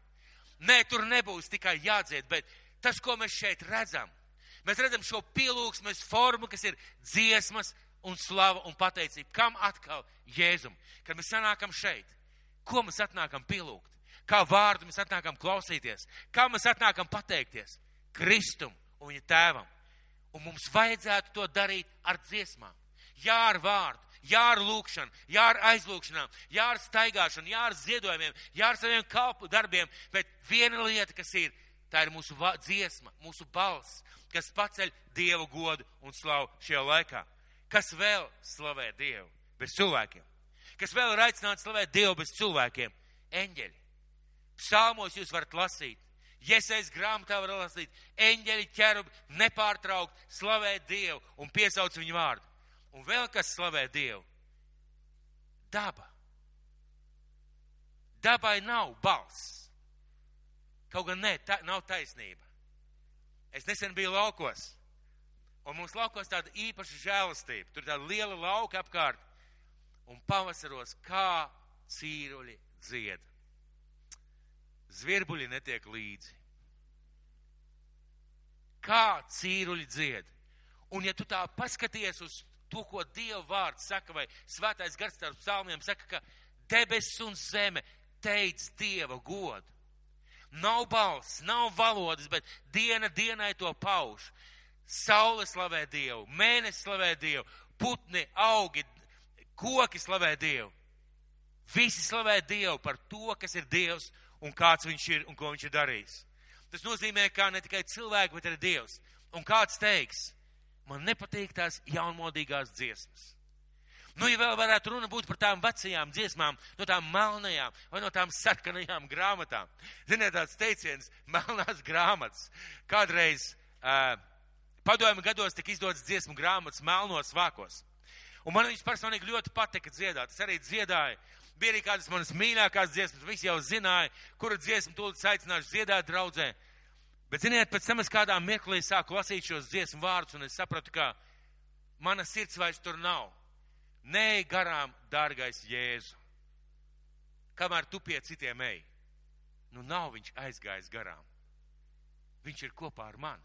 Nē, tur nebūs tikai jādzied, bet tas, ko mēs šeit redzam, mēs redzam šo pielūgsmes formu, kas ir dziesmas un slava un pateicība. Kam atkal? Jēzum. Kad mēs sanākam šeit, ko mēs atnākam pielūgt? Kā vārdu mēs atnākam klausīties? Kā mēs atnākam pateikties? Kristum un viņa tēvam. Un mums vajadzētu to darīt ar dziesmām. Jā, ar vārdu, jā, ar lūkšanu, jā, ar aizlūkšanām, jā, ar staigāšanu, jā, ar ziedojumiem, jā, ar saviem kalpu darbiem. Bet viena lieta, kas ir, tā ir mūsu dziesma, mūsu balss, kas paceļ Dievu godu un slavu šajā laikā. Kas vēl slavē Dievu bez cilvēkiem? Kas vēl ir aicināts slavēt Dievu bez cilvēkiem? Eņģeļi. Psalmos jūs varat lasīt. Jesajas grāmatā var lasīt. Eņģeļi, ķerubi nepārtraukt slavē Dievu un piesauc viņu vārdu. Un vēl kas slavē Dievu? Daba. Dabai nav balss. Kaut gan ne, nav taisnība. Es nesen biju laukos. Un mums laukos tāda īpaša žēlastība. Tur tāda liela lauka apkārt. Un pavasaros kā cīruļi dzied. Zvirbuļi netiek līdzi. Kā cīruļi dzied. Un ja tu tā paskaties uz to, ko Dieva vārds saka, vai svētais gars starp psalmiem saka, ka debesis un zeme teic Dieva godu. Nav balss, nav valodas, bet diena dienai to pauž. Saule slavē Dievu, mēnesis slavē Dievu, putni, augi, koki slavē Dievu. Visi slavē Dievu par to, kas ir Dievs un kāds viņš ir un ko viņš ir darījis. Tas nozīmē, ka ne tikai cilvēki, bet arī Dievs. Un kāds teiks, man nepatīk tās jaunmodīgās dziesmas. Nu, ja vēl varētu runa būt par tām vecajām dziesmām, no tām melnajām vai no tām sarkanajām grāmatām. Ziniet, tāds teiciens, melnās grāmatas. Kādreiz padomju gados tika izdotas dziesmu grāmatas melnos vākos. Un man viņas personīgi ļoti patika dziedāt. Es arī dziedāju. Bija arī kādas manas mīļākās dziesmas. Visi jau zināja, kura dziesmu tūlīt aicināšu dziedāt draudzē. Bet, ziniet, pēc tam es kādā mirklī sāku lasīt šos dziesmu vārdus, un es sapratu, ka mana sirds vairs tur nav. Nē, garām, dārgais Jēzu. Kamēr tu pie citiem ej, nu nav viņš aizgājis garām. Viņš ir kopā ar mani.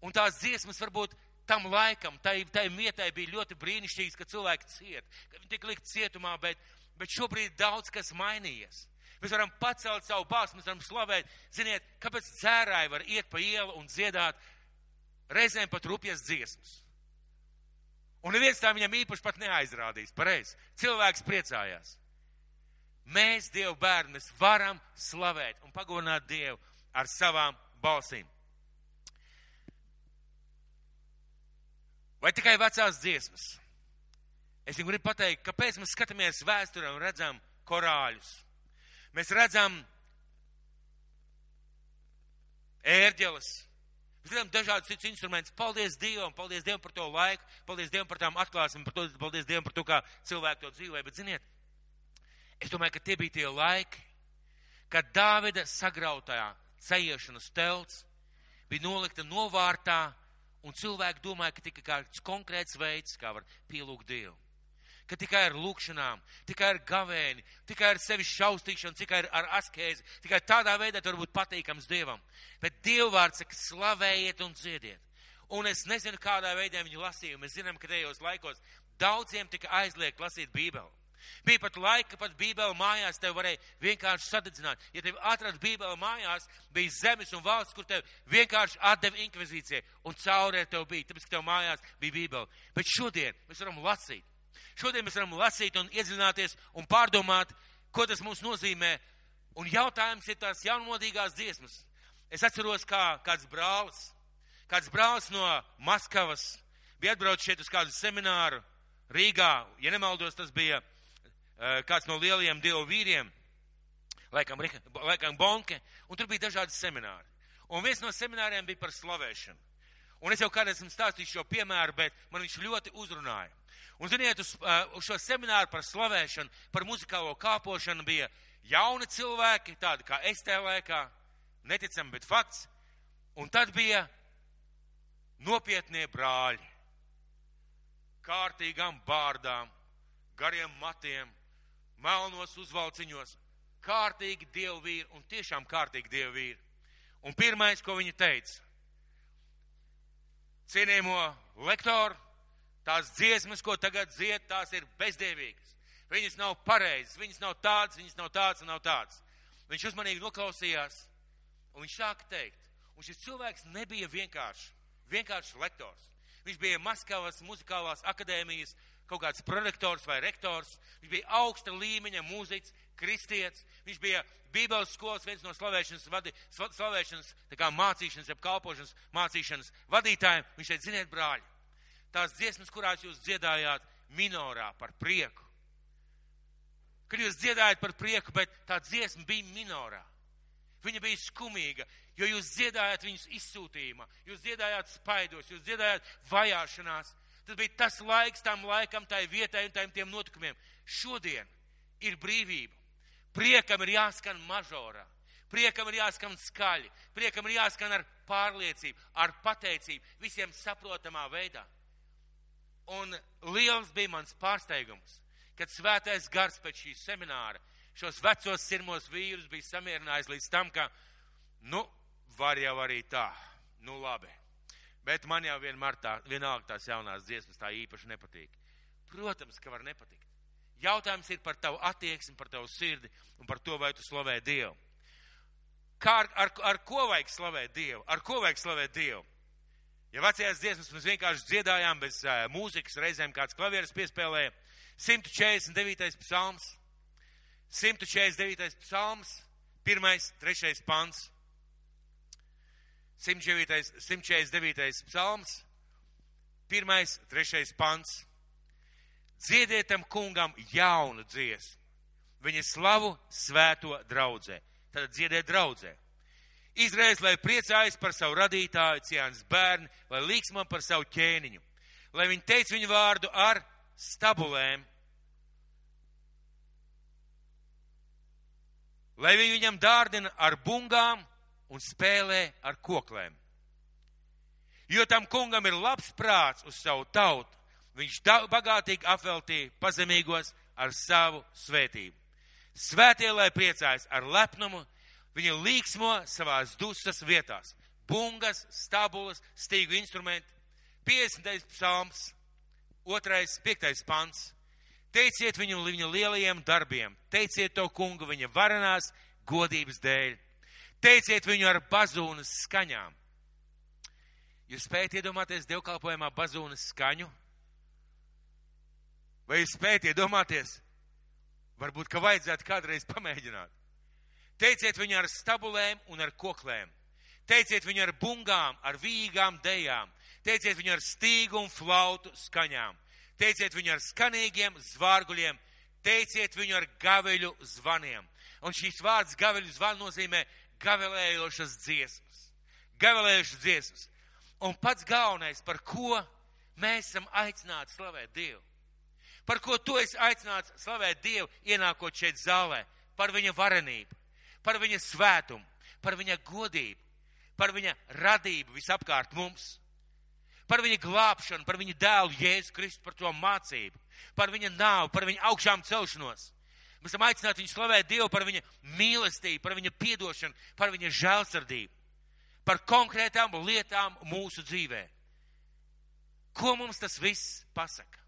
Un tās dziesmas varbūt tam laikam, tai vietai bija ļoti brīnišķīgas, ka cilvēki ciet, ka viņi tik likt cietumā, bet šobrīd daudz kas mainījies. Mēs varam pacelt savu balsi, mēs varam slavēt. Ziniet, kāpēc dzērāji var iet pa ielu un dziedāt reizēm pat rupjas dziesmas? Un neviens tā viņam īpaši pat neaizrādīs. Pareizi. Cilvēks priecājās. Mēs, Dievu bērni, mēs varam slavēt un pagodināt Dievu ar savām balsīm. Vai tikai vecās dziesmas? Es jums gribu pateikt, kāpēc mēs skatāmies vēsturē un redzam korāļus. Mēs redzam ērģeles. Mēs dziedam dažādus citus instrumentus. Paldies Dievam par to laiku, paldies Dievam par tām atklāsmēm, paldies Dievam par to, kā cilvēki to dzīvoja. Bet, ziniet, es domāju, ka tie bija tie laiki, kad Dāvida sagrautā cejiešanas telts bija nolikta novārtā, un cilvēki domāja, ka tikai kāds konkrēts veids, kā var pielūgt Dievu. Ka tikai ar lūkšanām, tikai ar gavēni, tikai ar sevis šaustīšanu, tikai ar askēzi, tikai tādā veidā tur būt patīkams Dievam. Bet Dievvārds saka, slavējiet un dziediet. Un es nezinu, kādā veidā viņi lasīja. Mēs zinām, ka tajos laikos daudziem tika aizliegt lasīt Bībeli. Bija pat laika, pat Bībeli mājās tev varēja vienkārši sadedzināt. Ja tev atrad Bībeli mājās, bija zemes un valsts, kur tev vienkārši atdeva inkvizīcijai, un caurē tev bija, tāpēc, ka tev mājās bija Bībeli. Bet šodien mēs varam lasīt. Šodien mēs varam lasīt un iedziļināties un pārdomāt, ko tas mums nozīmē. Un jautājums ir tās jaunmodīgās dziesmas. Es atceros, kā kāds brālis no Maskavas bija atbraucis šeit uz kādu semināru Rīgā. Ja nemaldos, tas bija kāds no lielajiem Dievu vīriem, laikam Bonke, un tur bija dažādi semināri. Un viens no semināriem bija par slavēšanu. Un es jau kādreiz esmu stāstījis šo piemēru, bet man viņš ļoti uzrunāja. Un, ziniet, uz šo semināru par slavēšanu, par muzikālo kāpošanu bija jauni cilvēki, tādi kā es tajā laikā, neticami, bet fakts. Un tad bija nopietnie brāļi, kārtīgām bārdām, gariem matiem, melnos uzvalciņos, kārtīgi Dievu vīri un tiešām kārtīgi Dievu vīri. Un pirmais, ko viņi teica, cienījamo lektoru, tās dziesmas, ko tagad dzied, tās ir bezdievīgas. Viņas nav pareizas, viņas nav tādas un nav tādas. Viņš uzmanīgi noklausījās, un viņš sāka teikt. Un šis cilvēks nebija vienkārši lektors. Viņš bija Maskavas muzikālās akadēmijas kaut kāds prorektors vai rektors. Viņš bija augsta līmeņa mūziķis, kristietis. Viņš bija Bībeles skolas viens no slavēšanas tā kā mācīšanas, jeb kalpošanas mācīšanas vadītājiem. Viņš teica, ziniet, brāļi, tās dziesmas, kurās jūs dziedājāt minorā par prieku. Kad jūs dziedājat par prieku, bet tā dziesma bija minorā. Viņa bija skumīga, jo jūs dziedājāt viņus izsūtījumā, jūs dziedājāt spaidos, jūs dziedājāt vajāšanās. Tas bija tas laiks tam laikam, tai vietai un tiem notikumiem. Šodien ir brīvība. Priekam ir jāskan mažorā. Priekam ir jāskan skaļi. Priekam ir jāskan ar pārliecību, ar pateicību, visiem saprotamā veidā. Un liels bija mans pārsteigums, kad svētais gars pēc šī semināra šos vecos sirmos vīrus bija samierinājis līdz tam, ka, var jau arī tā, labi. Bet man jau vienalga tās jaunās dziesmas tā īpaši nepatīk. Protams, ka var nepatikt. Jautājums ir par tavu attieksmi, par tavu sirdi un par to, vai tu slavē Dievu. Ar ko vajag slavēt Dievu? Ar ko vajag slavēt Dievu? Ja vecajās dziesmas mēs vienkārši dziedājām bez mūzikas, reizēm kāds klavieres piespēlēja, 149. psalms, 149. psalms, 1, 3. pants. 149. psalms, 1, 3. pants. Dziedietam kungam jaunu dziesmu, viņa slavu svēto draudzē. Tad dziediet draudzē. Izraels, lai priecājas par savu radītāju, Ciānas bērni, lai līksmo par savu ķēniņu. Lai viņi teic viņu vārdu ar stabulēm. Lai viņi viņam dārdina ar bungām un spēlē ar koklēm. Jo tam kungam ir labs prāts uz savu tautu. Viņš bagātīgi apveltīja pazemīgos ar savu svētību. Svētie, lai priecājas ar lepnumu, viņi līksmo savās dusmas vietās. Bungas, stabulas, stīgu instrumenti. 50. psalms, 2, 5. pants. Teiciet viņu viņa lielajiem darbiem. Teiciet to kungu viņa varenās godības dēļ. Teiciet viņu ar bazūnas skaņām. Jūs spējat iedomāties dievkalpojumā bazūnas skaņu? Vai jūs spējat iedomāties? Varbūt, ka vajadzētu kādreiz pamēģināt. Teiciet viņu ar stabulēm un ar koklēm. Teiciet viņu ar bungām, ar vīgām dejām. Teiciet viņu ar stīgu un flautu skaņām. Teiciet viņu ar skanīgiem zvārguļiem. Teiciet viņu ar gaveļu zvaniem. Un šīs vārds gaveļu zvanu nozīmē gavelējošas dziesmas. gavilējušas dziesmas. Un pats galvenais, par ko mēs esam aicināti slavēt Dievu. Par ko tu esi aicināts slavēt Dievu, ienākot šeit zālē. Par viņa varenību, par viņa svētumu, par viņa godību, par viņa radību visapkārt mums. Par viņa glābšanu, par viņa dēlu Jēzu Kristu, par to mācību, par viņa nāvu, par viņa augšām celšanos. Mēs esam aicināti viņu slavēt Dievu par viņa mīlestību, par viņa piedošanu, par viņa žēlsirdību, par konkrētām lietām mūsu dzīvē. Ko mums tas viss pasaka?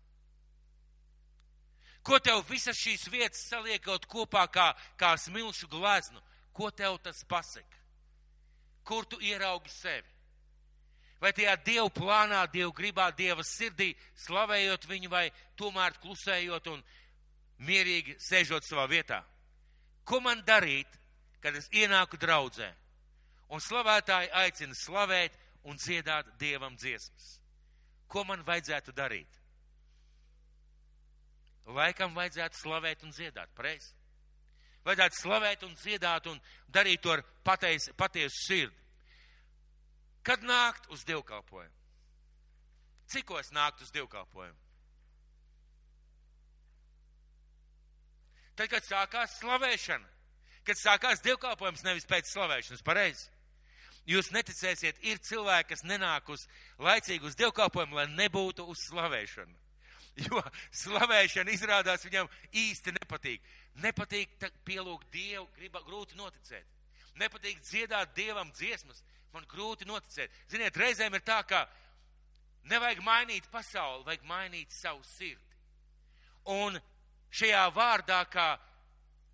Ko tev visas šīs vietas saliekot kopā kā smilšu gleznu? Ko tev tas pasaka? Kur tu ieraugi sevi? Vai tajā Dievu plānā, Dievu gribā, Dieva sirdī, slavējot viņu, vai tomēr klusējot un mierīgi sēžot savā vietā? Ko man darīt, kad es ienāku draudzē un slavētāji aicina slavēt un dziedāt Dievam dziesmas? Ko man vajadzētu darīt? Laikam vajadzētu slavēt un dziedāt, pareizi? Vajadzētu slavēt un dziedāt un darīt to ar patiesu sirdi. Kad nākt uz dievkalpojumu? Cikos nākt uz dievkalpojumu? Tad, kad sākās slavēšana, kad sākās dievkalpojums, nevis pēc slavēšanas, pareizi? Jūs neticēsiet, ir cilvēki, kas nenāk laicīgi uz dievkalpojumu, lai nebūtu uz slavēšanu. Jo slavēšana izrādās viņam īsti nepatīk. Nepatīk pielūgt Dievu, grūti noticēt. Nepatīk dziedāt Dievam dziesmas, man grūti noticēt. Ziniet, reizēm ir tā, ka nevajag mainīt pasauli, vajag mainīt savu sirdi. Un šajā vārdā, kā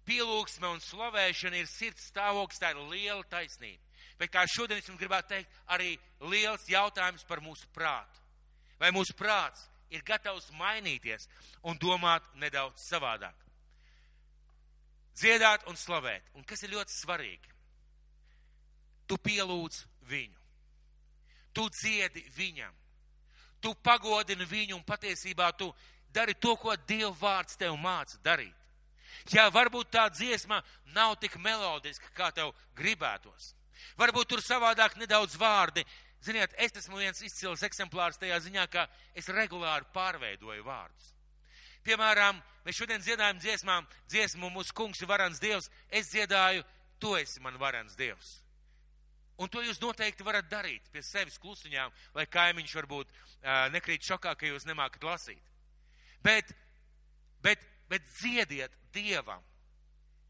pielūgsme un slavēšana ir sirds stāvoklis, tā ir liela taisnība. Bet kā šodien es jums gribētu teikt, arī liels jautājums par mūsu prātu. Vai mūsu prāts ir gatavs mainīties un domāt nedaudz savādāk? Dziedāt un slavēt. Un kas ir ļoti svarīgi? Tu pielūdz viņu. Tu dziedi viņam. Tu pagodini viņu un patiesībā tu dari to, ko Dieva vārds tev māca darīt. Jā, varbūt tā dziesma nav tik melodiska, kā tev gribētos. Varbūt tur savādāk nedaudz vārdi. Ziniet, es esmu viens izcils eksemplārs tajā ziņā, ka es regulāri pārveidoju vārdus. Piemēram, mēs šodien dziedājam dziesmu mūsu kungs ir varens Dievs. Es dziedāju, tu esi man varens Dievs. Un to jūs noteikti varat darīt pie sevis klusiņām, lai kaimiņš varbūt nekrīt šokā, ka jūs nemākat lasīt. Bet dziediet Dievam.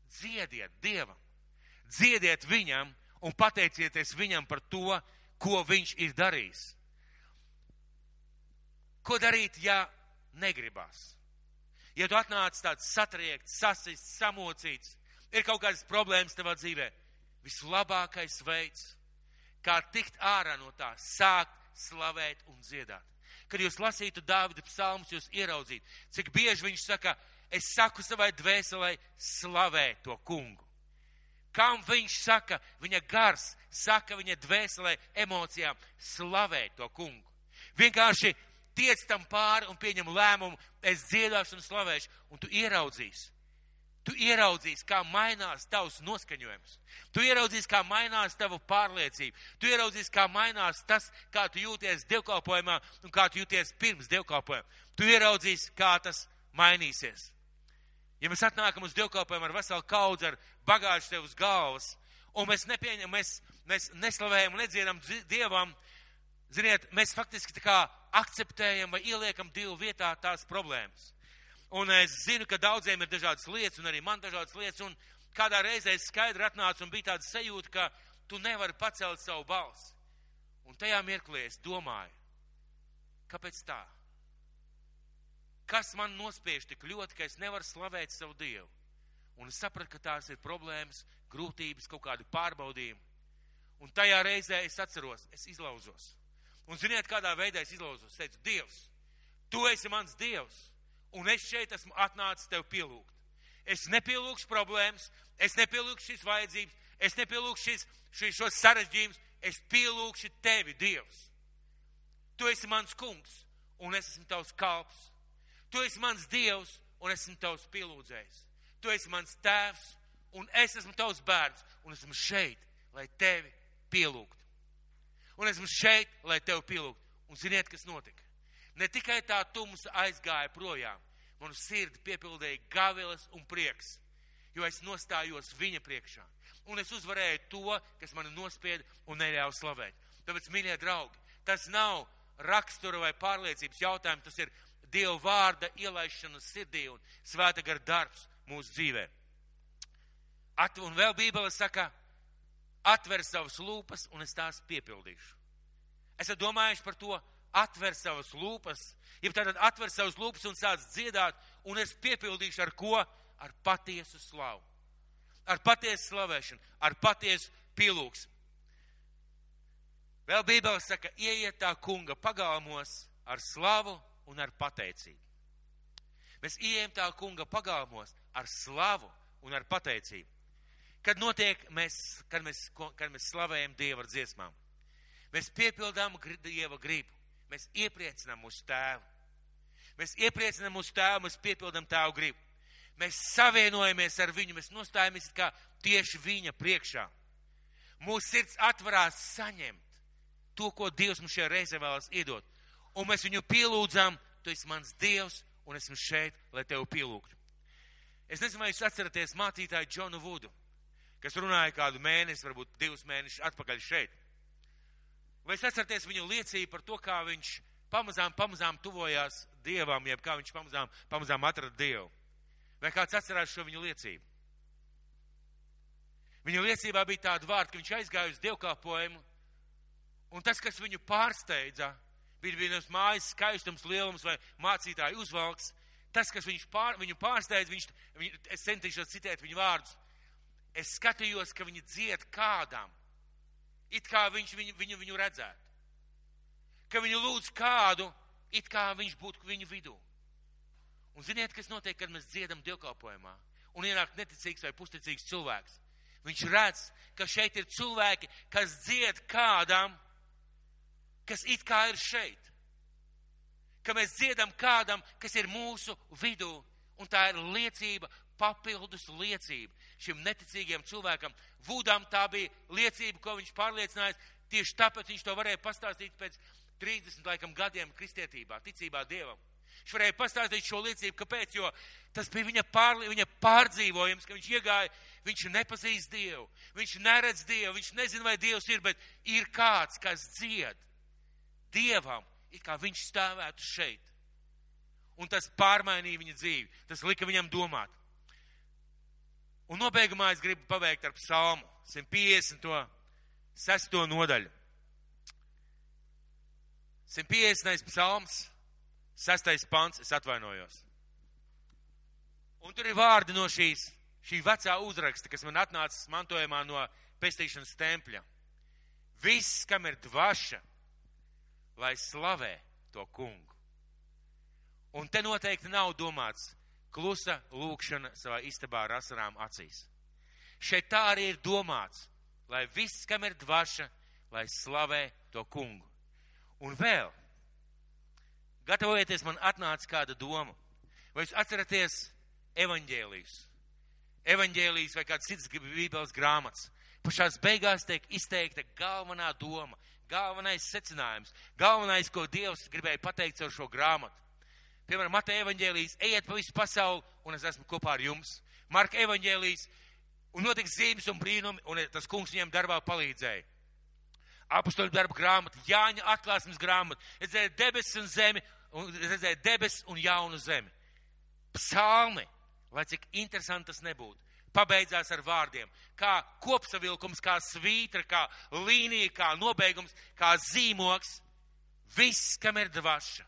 Dziediet Dievam. Dziediet viņam un pateicieties viņam par to, ko viņš ir darījis. Ko darīt, ja negribās? Ja tu atnāc tāds satriekts, sasists, samocīts, ir kaut kādas problēmas tavā dzīvē, vislabākais veids, kā tikt ārā no tā, sākt slavēt un dziedāt. Kad jūs lasītu Dāvida psalmus, jūs ieraudzītu, cik bieži viņš saka, es saku savai dvēselē, slavē to kungu. Kam viņš saka, viņa gars saka viņa dvēselē, emocijām, slavē to kungu. Vienkārši tiec tam pāri un pieņem lēmumu, es dziedāšu un slavēšu, un tu ieraudzīsi. Tu ieraudzīsi, kā mainās tavs noskaņojums. Tu ieraudzīsi, kā mainās tava pārliecība. Tu ieraudzīsi, kā mainās tas, kā tu jūties dievkalpojumā un kā tu jūties pirms dievkalpojuma. Tu ieraudzīsi, kā tas mainīsies. Ja mēs atnākam uz dievkalpojumu ar veselu kaudzi, ar bagāžu tev uz galvas, un mēs nepieņemam, mēs neslavējam un nedziedam Dievam, ziniet, mēs faktiski tā kā akceptējam vai ieliekam Dievu vietā tās problēmas. Un es zinu, ka daudziem ir dažādas lietas, un arī man dažādas lietas, un kādā reizē es skaidri atnācu un bija tāda sajūta, ka tu nevari pacelt savu balsi. Un tajā mirklī es domāju, kāpēc tā? Kas man nospiež tik ļoti, ka es nevaru slavēt savu Dievu? Un es sapratu, ka tās ir problēmas, grūtības, kaut kādi pārbaudījumi. Un tajā reizē es atceros, es izlauzos. Un ziniet, kādā veidā es izlauzos? Es teicu, Dievs, tu esi mans Dievs, un es šeit esmu atnācis tev pielūgt. Es nepielūgšu problēmas, es nepielūgšu šīs vajadzības, es nepielūgšu šos sarežģījumus, es pielūgšu tevi, Dievs. Tu esi mans kungs, un es esmu tavs kalps. Tu esi mans Dievs, un esmu tavs pielūdzējs. Tu esi mans tēvs, un es esmu tavs bērns, un esmu šeit, lai tevi pielūgtu. Un esmu šeit, lai tev pielūgtu. Un ziniet, kas notika? Ne tikai tā tumsa aizgāja projām, manu sirdi piepildīja gavilas un prieks, jo es nostājos viņa priekšā. Un es uzvarēju to, kas mani nospieda un neļāva slavēt. Tāpēc, mīļie draugi, tas nav rakstura vai pārliecības jautājums, tas ir Dieva vārda ielaišana sirdī un svēta gara darbs mūsu dzīvē. Un vēl Bībele saka, atver savas lūpas un es tās piepildīšu. Esat domājuši par to, atver savas lūpas, ja tātad atver savas lūpas un sāc dziedāt, un es piepildīšu ar ko? Ar patiesu slavu. Ar patiesu slavēšanu, ar patiesu pielūgsmu. Vēl Bībele saka, ieiet tā kunga pagalmos ar slavu un ar pateicību. Mēs ieejam tā kunga pagalmos ar slavu un ar pateicību. Kad notiek, kad mēs slavējam Dievu ar dziesmām, mēs piepildām Dieva gribu, mēs iepriecinām mūsu tēvu. Mēs iepriecinām mūsu tēvu, mēs piepildām tēvu gribu. Mēs savienojamies ar viņu, mēs nostājamies kā tieši viņa priekšā. Mūsu sirds atvarās saņemt to, ko Dievs mums šajā reizē vēlas iedot. Un mēs viņu pielūdzām, tu esi mans Dievs, un esmu šeit, lai tevi pielūgtu. Es nezinu, vai jūs atceraties mācītāju Džonu Vudu, kas runāja kādu mēnesi, varbūt 2 mēnešus atpakaļ šeit. Vai jūs atceraties viņu liecību par to, kā viņš pamazām tuvojās Dievam, jeb kā viņš pamazām atrada Dievu? Vai kāds atcerās šo viņu liecību? Viņa liecībā bija tāda vārda, ka viņš aizgāja uz dievkalpojumu, un tas, kas viņu pārsteidza, bija vienas mājas skaistums, lielums vai mācītāju uzvalks. Tas, kas viņu pārsteidza, es centīšos citēt viņu vārdus. Es skatījos, ka viņi dzied kādam, it kā viņš viņu redzētu. Ka viņi lūdz kādu, it kā viņš būtu viņu vidū. Un ziniet, kas notiek, kad mēs dziedam dievkalpojumā un ienāk neticīgs vai pusticīgs cilvēks. Viņš redz, ka šeit ir cilvēki, kas dzied kādam, kas it kā ir šeit. Ka mēs dziedam kādam, kas ir mūsu vidū, un tā ir liecība, papildus liecība šim neticīgiem cilvēkam. Vudam tā bija liecība, ko viņš pārliecinājās, tieši tāpēc viņš to varēja pastāstīt pēc 30 laikam gadiem kristietībā, ticībā Dievam. Viņš varēja pastāstīt šo liecību, kāpēc, jo tas bija viņa pārdzīvojums, ka viņš iegāja, viņš nepazīst Dievu, viņš neredz Dievu, viņš nezina, vai Dievs ir, bet ir kāds, kas dzied Dievam, it kā viņš stāvētu šeit. Un tas pārmainīja viņa dzīvi, tas lika viņam domāt. Un nobeigumā es gribu pabeigt ar psalmu 156. nodaļu. 150. psalms, 6. pants, es atvainojos. Un tur ir vārdi no šī vecā uzraksta, kas man atnācis mantojumā no pestīšanas tempļa. Viss, kam ir dvaša, lai slavē to kungu. Un te noteikti nav domāts klusa lūkšana savā istabā ar asarām acīs. Šeit tā arī ir domāts, lai viss, kam ir dvaša, lai slavē to kungu. Un vēl, gatavojieties, man atnāca kāda doma. Vai jūs atceraties evaņģēlijus? Evaņģēlijus vai kāds cits bībeles grāmatas. Pašās beigās tiek izteikta galvenā doma, galvenais secinājums, galvenais, ko Dievs gribēja pateikt caur šo grāmatu. Piemēram, Mateja evaņģēlijs, ejiet pa visu pasauli, un es esmu kopā ar jums. Marka evaņģēlijs, un notiks zīmes un brīnumi, un tas kungs viņiem darbā palīdzēja. Apostoļu darba grāmata, Jāņa atklāsmes grāmata, redzēja debesis un zemi, un redzēja debesis un jaunu zemi. Psalmi, lai cik interesanti tas nebūtu, pabeidzās ar vārdiem, kā kopsavilkums, kā svītra, kā līnija, kā nobeigums, kā zīmoks. Viss, kam ir dvaša,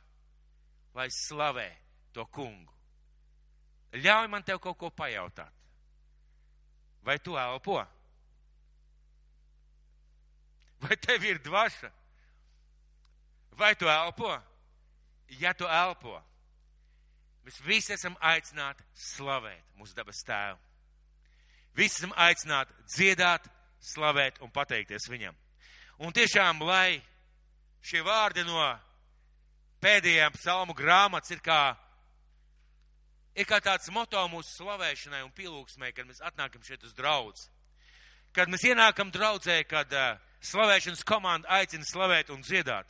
lai slavē to kungu. Ļauj man tev kaut ko pajautāt. Vai tu elpo? Vai tev ir dvaša? Vai tu elpo? Ja tu elpo, mēs visi esam aicināti slavēt mūsu dabas tēvu. Visi esam aicināti dziedāt, slavēt un pateikties viņam. Un tiešām, lai šie vārdi no pēdējām psalmu grāmatas ir kā tāds moto mūsu slavēšanai un pielūgsmai, kad mēs atnākam šeit uz draudzi. Kad mēs ienākam draudzē, kad slavēšanas komanda aicina slavēt un dziedāt.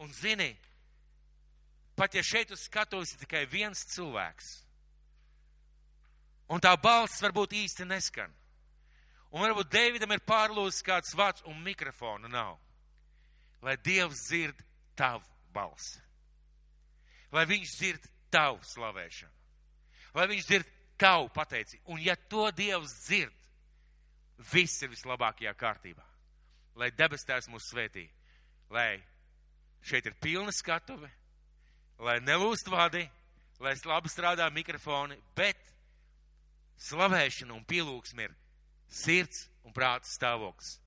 Un zini, pat ja šeit uz skatuves ir tikai viens cilvēks, un tā balss varbūt īsti neskan, un varbūt Deividam ir pārlūzis kāds vārds un mikrofona nav, lai Dievs dzird tavu balsi, lai viņš dzird tavu slavēšanu, lai viņš dzird tavu pateicību. Un ja to Dievs dzird, viss ir vislabākajā kārtībā. Lai debes Tēvs mūs svētī, lai šeit ir pilna skatuve, lai nelūst vadi, lai labi strādā mikrofoni, bet slavēšana un pielūgsme ir sirds un prāta stāvoklis.